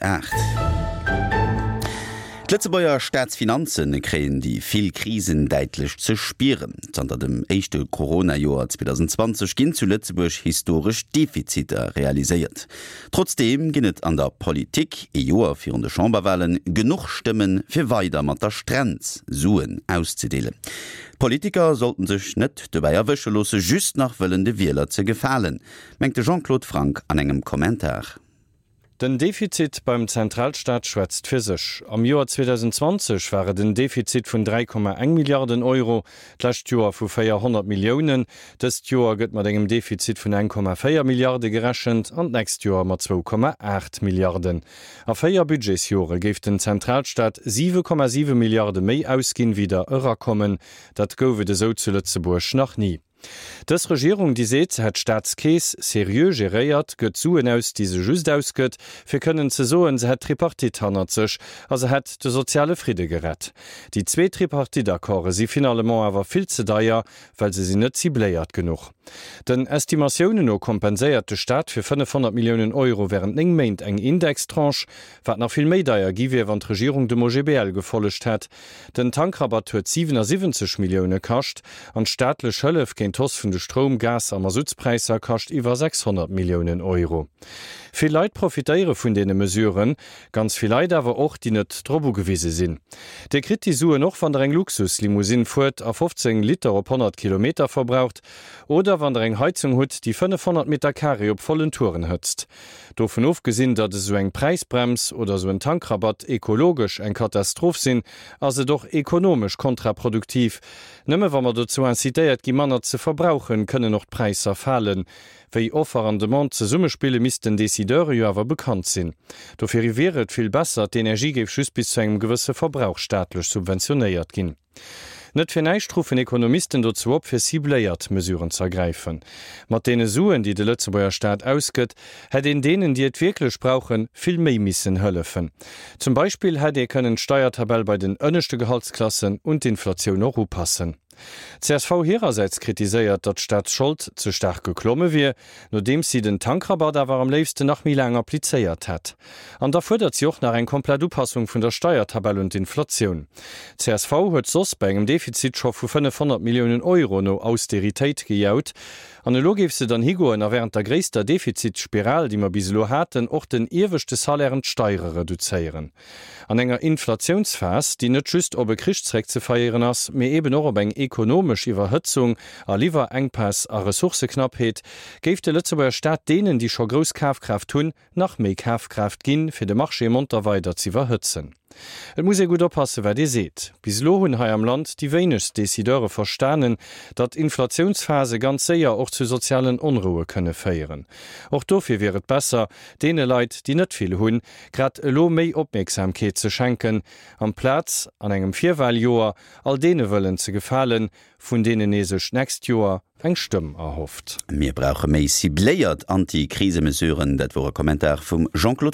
8. D'Lëtzebuerger Staatsfinanze kréien déi vill Krisen däitlech ze spieren. Zanter dem éischte Corona-Joer 2020 ginn zu Lëtzebuerg historesch Defiziter realiséiert. Trotzdeem ginn et an der Politik, ee Joer virun de Chamberwalen, genuch Stëmmen, fir weider mat der Strenz Suen auszedeelen. D'Politiker sollten sech net dobäi erwësche loosse, just nach wëllen de Wieler ze gefalen, mengt de Jean-Claude Franck an engem Kommentar. Den Defizit beim Zentralstaat schwätzt fir sech. Am Joer 2020 war et en Defizit vun 3,1 Milliarden Euro, d'lescht Joer vu 400 Milliounen. Dëst Joer gëtt mat engem Defizit vun 1,4 Milliarde gerechent an d'nächst Joer mat 2,8 Milliarden. A véier Budgetsjore géif den Zentralstaat 7,7 Milliarde méi ausginn, wéi der erakommen. Dat gouf et esou zu Lëtzebuerg nach ni. Dës Regierung, déi seet, se hätt d'Staatskeess seriö geréiert, gëtt Suen aus, déi se just ausgëtt, fir kënnen ze soen, se hätt d'Tripartite hannert sech a se hätt de soziale Fridde gerett. Déi zwee Tripartite-Accorde si finalement awer vill ze deier, well se sinn net cibléiert genuch. Den Estimatiounen no kompenséiert de Staat fir 500 Milliounen Euro wärend 9 Méint eng Indextranche, wat nach vill méi deier gi wier, wann d'Regierung dem OGBL gefollegt hätt. Den Tankrabatt huet 77 Millioune kascht an d'staatlech Hëllef géint d'Hausse vun de Stroum-, Gas a Mazoutspräisser kascht iwwer 600 Milliounen Euro. Vill Leit profitéiere vun deene Mesuren, ganz vill Leit awer och, déi net drop ugewise sinn. Dir kritt déi Suen och, wann der eng Luxuslimousine fuert a 15 Liter op 100 Kilometer verbraucht oder wann der eng Heizung hutt, déi 500 Meter Carré op vollen Touren hëtzt. Dovun ofgesinn, datt esou eng Präisbrems oder esou en Tankrabatt ekologesch eng Katastroph sinn, ass et och ekonomesch kontraproduktiv. Nëmme wa mer dozou incitéiert gi manner ze verbrauchen, kënnen och d'Präisser falen. Wéi Offer an Demande zesummespillen, misst den Decideure jo awer bekannt sinn. Dofir wier et vill besser, d'Energie géif just bis zu engem gewësse Verbrauch staatlech subventionéiert ginn. Net fir näischt ruffen Ekonomisten dozou op, fir cibléiert Mesuren z'ergräifen. Mat deene Suen, déi de Lëtzebuerger Staat ausgëtt, hätt een deenen, déi et wierklech brauchen, vill méi missen hëllefen. Zum Beispill hätt ee kënnen d'Steiertabell bei den ënneschte Gehaltsklassen un d'Inflatioun och upassen. Csv hirersäits kritiséiert, datt d'Staatsschold ze staark geklomme wier, nodeems si den Tankrabatt awer am léifsten nach méi laang applizéiert hätt. An da fuerdert si och nach eng komplett Upassung vun der Steiertabell un d'Inflatioun. Csv huet soss bei engem Defizit scho vu 500 Milliounen Euro no Austeritéit gejaut. An elo géif se dann higoen a wärend der gréisster Defizitsspiral, déi mer bis elo haten, och den ieweschte Salairen d'Steiere reduzéieren. An enger Inflatiounsphas, déi net just op e Krich zréckzefeieren ass, mee eben och op eng ekonomesch Iwwerhëtzung a Liwwerenkpäss a Ressourcëknappheet, géif de Lëtzebuerger Staat deenen, déi scho grouss Kafkraaft hunn, nach méi Kafkraaft ginn, fir de Marché monter weider z'iwwerhëtzen. Et muss ee gutt oppassen, wat ee seet. Bis elo hunn hei am Land déi wéinegst Decideure verstanen, datt Inflatiounsphase ganz séier och zu sozialen Onroue kënne féieren. Och dofir wier et besser, deene Leit, déi net vill hunn, grad elo méi Opmierksamkeet ze schenken, amplaz an engem Virwahljoer all deene wëllen ze gefalen, vun deenen ee sech d'nächst Joer eng Stëmm erhofft. Mir brauche méi cibléiert Anti-Krisemesuren, dat wor e Kommentar vum Jean-Claude.